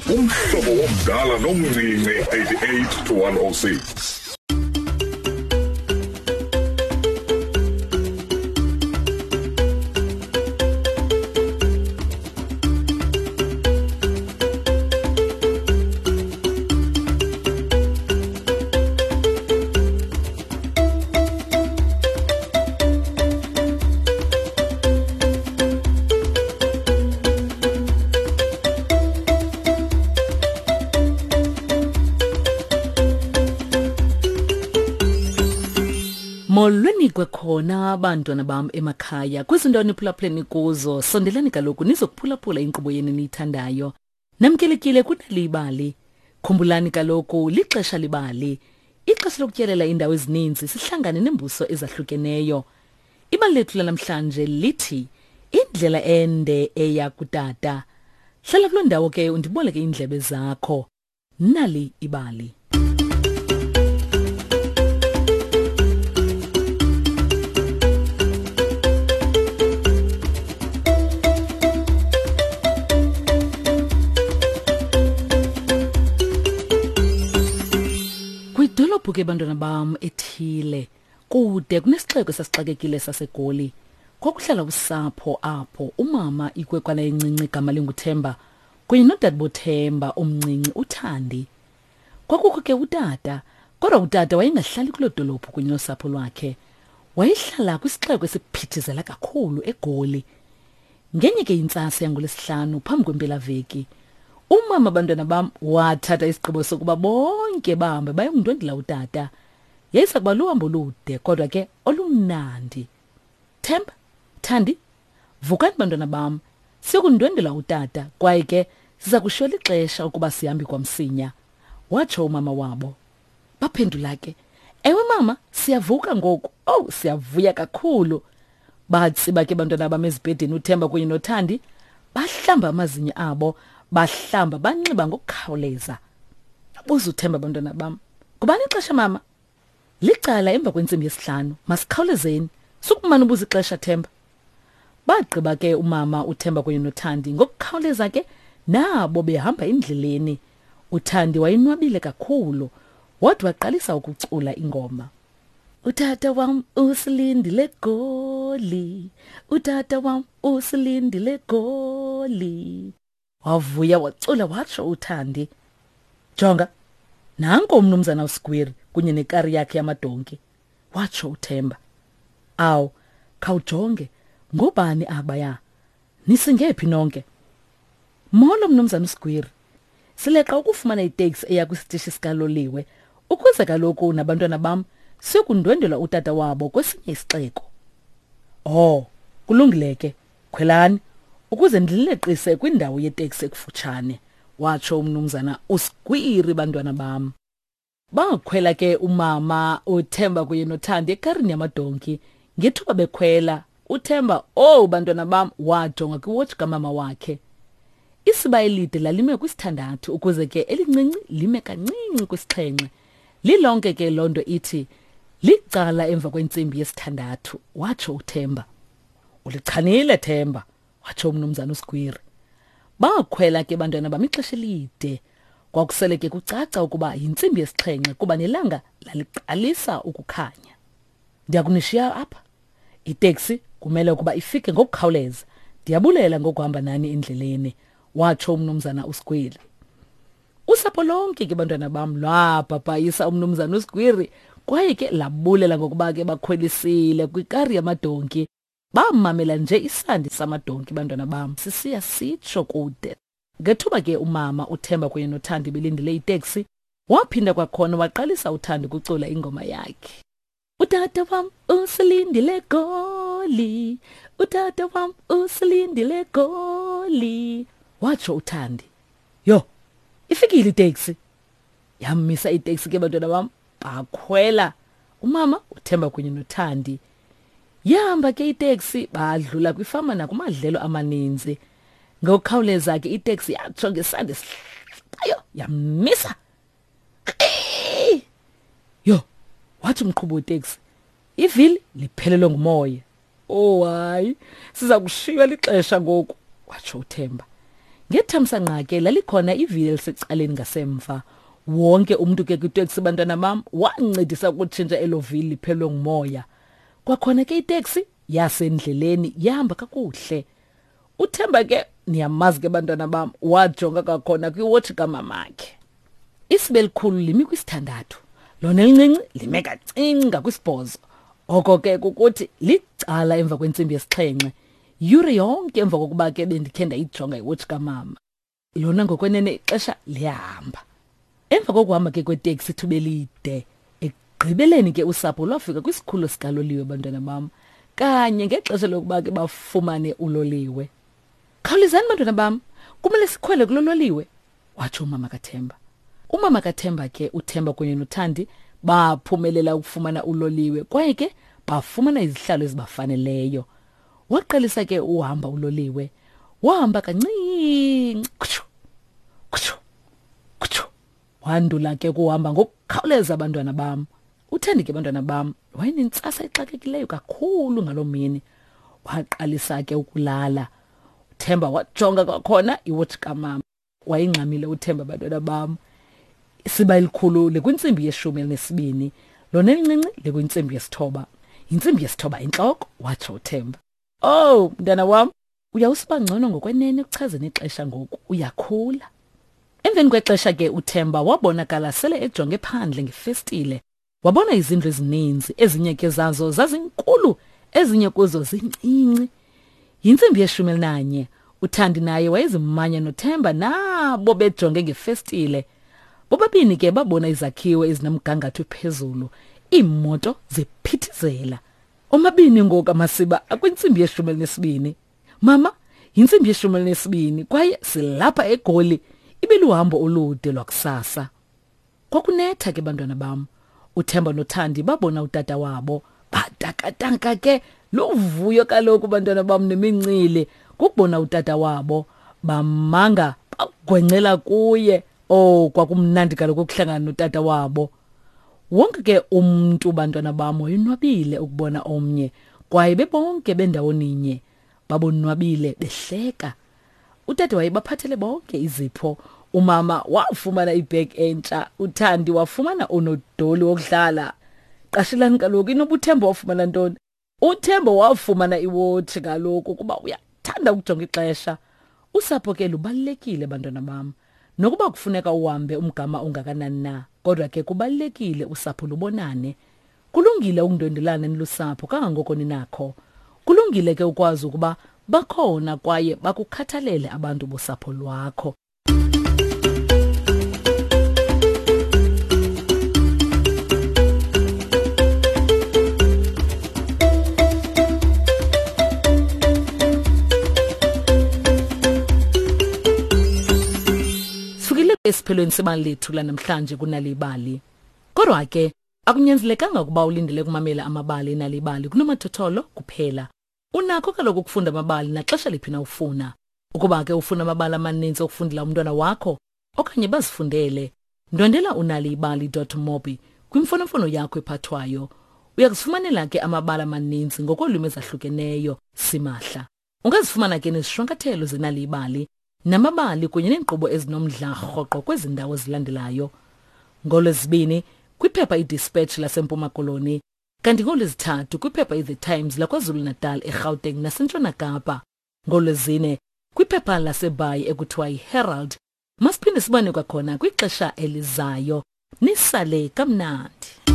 Umhlobo womdala nomncinci 88 to 106. Molweni kwakhona bantwana bam emakhaya kwizinto niphulaphuleni kuzo sondelani kaloku nizokuphulaphula inkqubo yenu niyithandayo Namkelekile kunali ibali. Khumbulani kaloku lixesha libali. Ixesha lokutyelela iindawo ezininzi sihlangane neembuso ezahlukeneyo. Ibali lethu lanamhlanje lithi indlela ende eya kutata. Hlala kuloo ndawo ke undiboleke iindlebe zakho. Nali ibali. Kwidolophu ke bantwana bam ethile kude kunesixeko esasixakekile saseGoli. Kwakuhlala usapho apho umama ikwekwana encinci igama linguThemba kunye nodadebothemba omncinci uthandi kwakukho ke utata kodwa utata wayengahlali kuloo dolophu kunye nosapho lwakhe wayehlala kwisixeko esiphithizela kakhulu egoli ngenye ke intsasa yangolwesihlanu phambi kwempelaveki umama abantwana bam wathatha isigqibo sokuba bonke bahambe bayongundwendela utata yayisa kuba luhambo olude kodwa ke olumnandi themba thandi Vukani bantwana bam, siyokundwendwela utata kwaye ke siza kushiywa lixesha ukuba sihambi kwamsinya, watsho umama wabo. Baphendula ke, Ewe mama, siyavuka ngoku. Owu, siyavuya kakhulu. Batsiba ke bantwana bam ezibhedini uThemba kunye noThandi, bahlamba amazinyo abo, bahlamba banxiba ngokukhawuleza. Buza uThemba bantwana bam, Ngubani ixesha mama? Licala emva kwentsimbi yesihlanu. Masikhawulezeni. Sukumane ubuza ixesha Themba. Bagqiba ke umama uThemba kunye noThandi ngokukhawuleza ke nabo behamba endleleni. UThandi wayinwabile kakhulu. Wade waqalisa ukucula ingoma. Utata wam usilindile goli. Utata wam usilindile goli. Wavuya wacula watsho uThandi. Jonga, nanko umnumzana uSgwiri kunye nekari yakhe yamadonki, watsho uThemba. Awu, khawujonge, ngobani abaya? Nisingephi nonke? Molo mnumzana uSgwiri. Sileqa ukufumana iteksi eya kwisitishi sikaloliwe ukuze kaloku nabantwana bam siyokundwendwela utata wabo kwesinye isixeko. Oh, kulungile ke. Khwelani ukuze ndilileqise kwindawo yeteksi ekufutshane, watsho umnumzana uSgwiri bantwana bam. Bakhwela ke umama uThemba kunye noThandi ekarini yamadonki. Ngethuba bekhwela, uThemba, oh bantwana bam, wajonga kwiwotshi kamama wakhe. Isiba elide lalime kwisithandathu ukuze ke elincinci lime kancinci kwisixhenxe. Lilonke ke loo nto ithi licala emva kwentsimbi yesithandathu, watsho uThemba. Ulichanile Themba, watsho umnumzana uSgwiri. Bakhwela ke bantwana bam ixesha elide. Kwakusele ke kucaca ukuba yintsimbi yesixhenxe kuba nelanga laliqalisa ukukhanya. Ndiyakunishiya apha. Iteksi kumele ukuba ifike ngokukhawuleza. Ndiyabulela ngokuhamba nani endleleni, watsho umnumzana uSgwiri. Usapho lonke ke bantwana bam lwabhabhayisa umnumzana uSgwiri kwaye ke labulela ngokuba ke bakhwelisile kwikari yamadonki. Bamamela nje isandi samadonki bantwana bam sisiya sitsho kude. Ngethuba ke umama uThemba kunye noThandi belindile iteksi, waphinda kwakhona waqalisa uThandi ukucula ingoma yakhe. Utata wam usilindile goli, utata wam usilindile goli, watsho uThandi. Yho, ifikile iteksi. Yamisa iteksi ke bantwana bam, bakhwela. Umama uThemba kunye noThandi. Yahamba ke iteksi badlula kwifama nakumadlelo amaninzi. Ngokukhawuleza ke iteksi yatsho ngesandi esihlabayo yamisa. Yho, wathi umqhubi weteksi, ivili liphelelwe ngumoya. Oh hayi, siza kushiywa lixesha ngoku, watsho uThemba. Ngethamsanqa ke lalikhona ivili elisecaleni ngasemva. Wonke umntu ke kwiteksi bantwana bam wancedisa ukutshintsha elo vili liphelwe ngumoya. Kwakhona ke iteksi yasendleleni yahamba kakuhle. Uthemba ke niyamazi ke bantwana bam wajonga kwakhona kwiwotshi kamamakhe. Isibe elikhulu limi kwisithandathu, lona elincinci lime kancinci ngakwisibhozo. Oko ke kukuthi licala emva kwentsimbi yesixhenxe, yure yonke emva kokuba ke bendikhe ndayijonga iwotshi kamama. Lona ngokwenene ixesha liyahamba. Emva kokuhamba ke kweteksi ithuba elide, ekugqibeleni ke usapho lwafika kwisikhululo sikaloliwe bantwana bam, kanye ngexesha lokuba ke bafumane uloliwe. Khawulezani bantwana bam, kumele sikhwele kulo loliwe, watsho umama kaThemba. Umama kaThemba ke uThemba kunye noThandi baphumelela ukufumana uloliwe kwaye ke bafumana izihlalo ezibafaneleyo. Waqalisa ke uhamba uloliwe. Wahamba kancinci. Kutshu. Kutshu. Kutshu. Wandula ke kuhamba ngokukhawuleza abantwana bam. Uthandi ke bantwana bam wayenentsasa exakekileyo kakhulu ngaloo mini. Waqalisa ke ukulala. Uthemba wajonga kwakhona iwotshi kamama. Wayengxamile uThemba bantwana bam. Isiba elikhulu likwintsimbi yeshumi elinesibini, lona elincinci likwintsimbi yesithoba. Yintsimbi yesithoba intloko, watsho uThemba. Oh, mntana wam, uyawusiba ngcono ngokwenene ekuchazeni ixesha ngoku, uyakhula. Emveni kwexesha ke uThemba wabonakala sele ejonge phandle ngefestile. Wabona izindlu ezininzi, ezinye ke zazo zazinkulu, ezinye kuzo zincinci. Yintsimbi yeshumi elinanye. UThandi naye wayezimanya noThemba nabo bejonge ngefestile. Bobabini ke babona izakhiwo ezinomgangatho phezulu, iimoto ziphithizela. Omabini ngoku amasiba akwintsimbi yeshumi elinesibini. Mama, yintsimbi yeshumi elinesibini kwaye silapha eGoli. Ibiluhambo olude lwakusasa. Kwakunetha ke bantwana bam. UThemba noThandi babona utata wabo. Batakatanka ke luvuyo kaloku bantwana bam nemincili kukubona utata wabo. Bamanga bagwencela kuye. Oh, kwakumnandi kaloku ukuhlangana notata wabo. Wonke ke umntu bantwana bam wayonwabile ukubona omnye kwaye bebonke bendawoninye. Babonwabile behleka. Utata wayebaphathele bonke izipho. Umama wafumana ibag entsha, uThandi wafumana unodoli wokudlala. Qashelani kaloku inoba uThemba wafumana ntoni? UThemba wafumana iwotshi kaloku kuba uyathanda ukujonga ixesha. Usapho ke lubalulekile bantwana bam. Nokuba kufuneka uhambe umgama ongakanani na, kodwa ke kubalulekile usapho lubonane. Kulungile ukundwendelana nilusapho kangangoko ninakho. Kulungile ke ukwazi ukuba bakhona kwaye bakukhathalele abantu bosapho lwakho. Sifikile esiphelweni sebali lethu lanamhlanje kunalibali. Kodwa ke akunyanzelekanga ukuba ulindele ukumamela amabali enalibali kunomathotholo kuphela. Unakho kaloku ukufunda amabali naxesha liphi na ufuna. Ukuba ke ufuna amabali amaninzi okufundela umntwana wakho okanye bazifundele, ndwendela unalibali.mobi kwimfonomfono yakho ephathwayo. Uya kuzifumanela ke amabali amaninzi ngokolwimi ezahlukeneyo simahla. Ungazifumana ke nezishwankathelo zenalibali namabali kunye neenkqubo ezinomdla rhoqo kwezi ndawo zilandelayo. NgoLwezibini kwiphepha iDispatch laseMpuma Koloni, kanti ngoLwezithathu kwiphepha iThe Times laKwaZulu-Natal, eGauteng naseNtshona Kapa. NgoLwezine kwiphepha laseBhayi ekuthiwa yiHerald. Masiphinde sibone kwakhona kwixesha elizayo. Nisale kamnandi.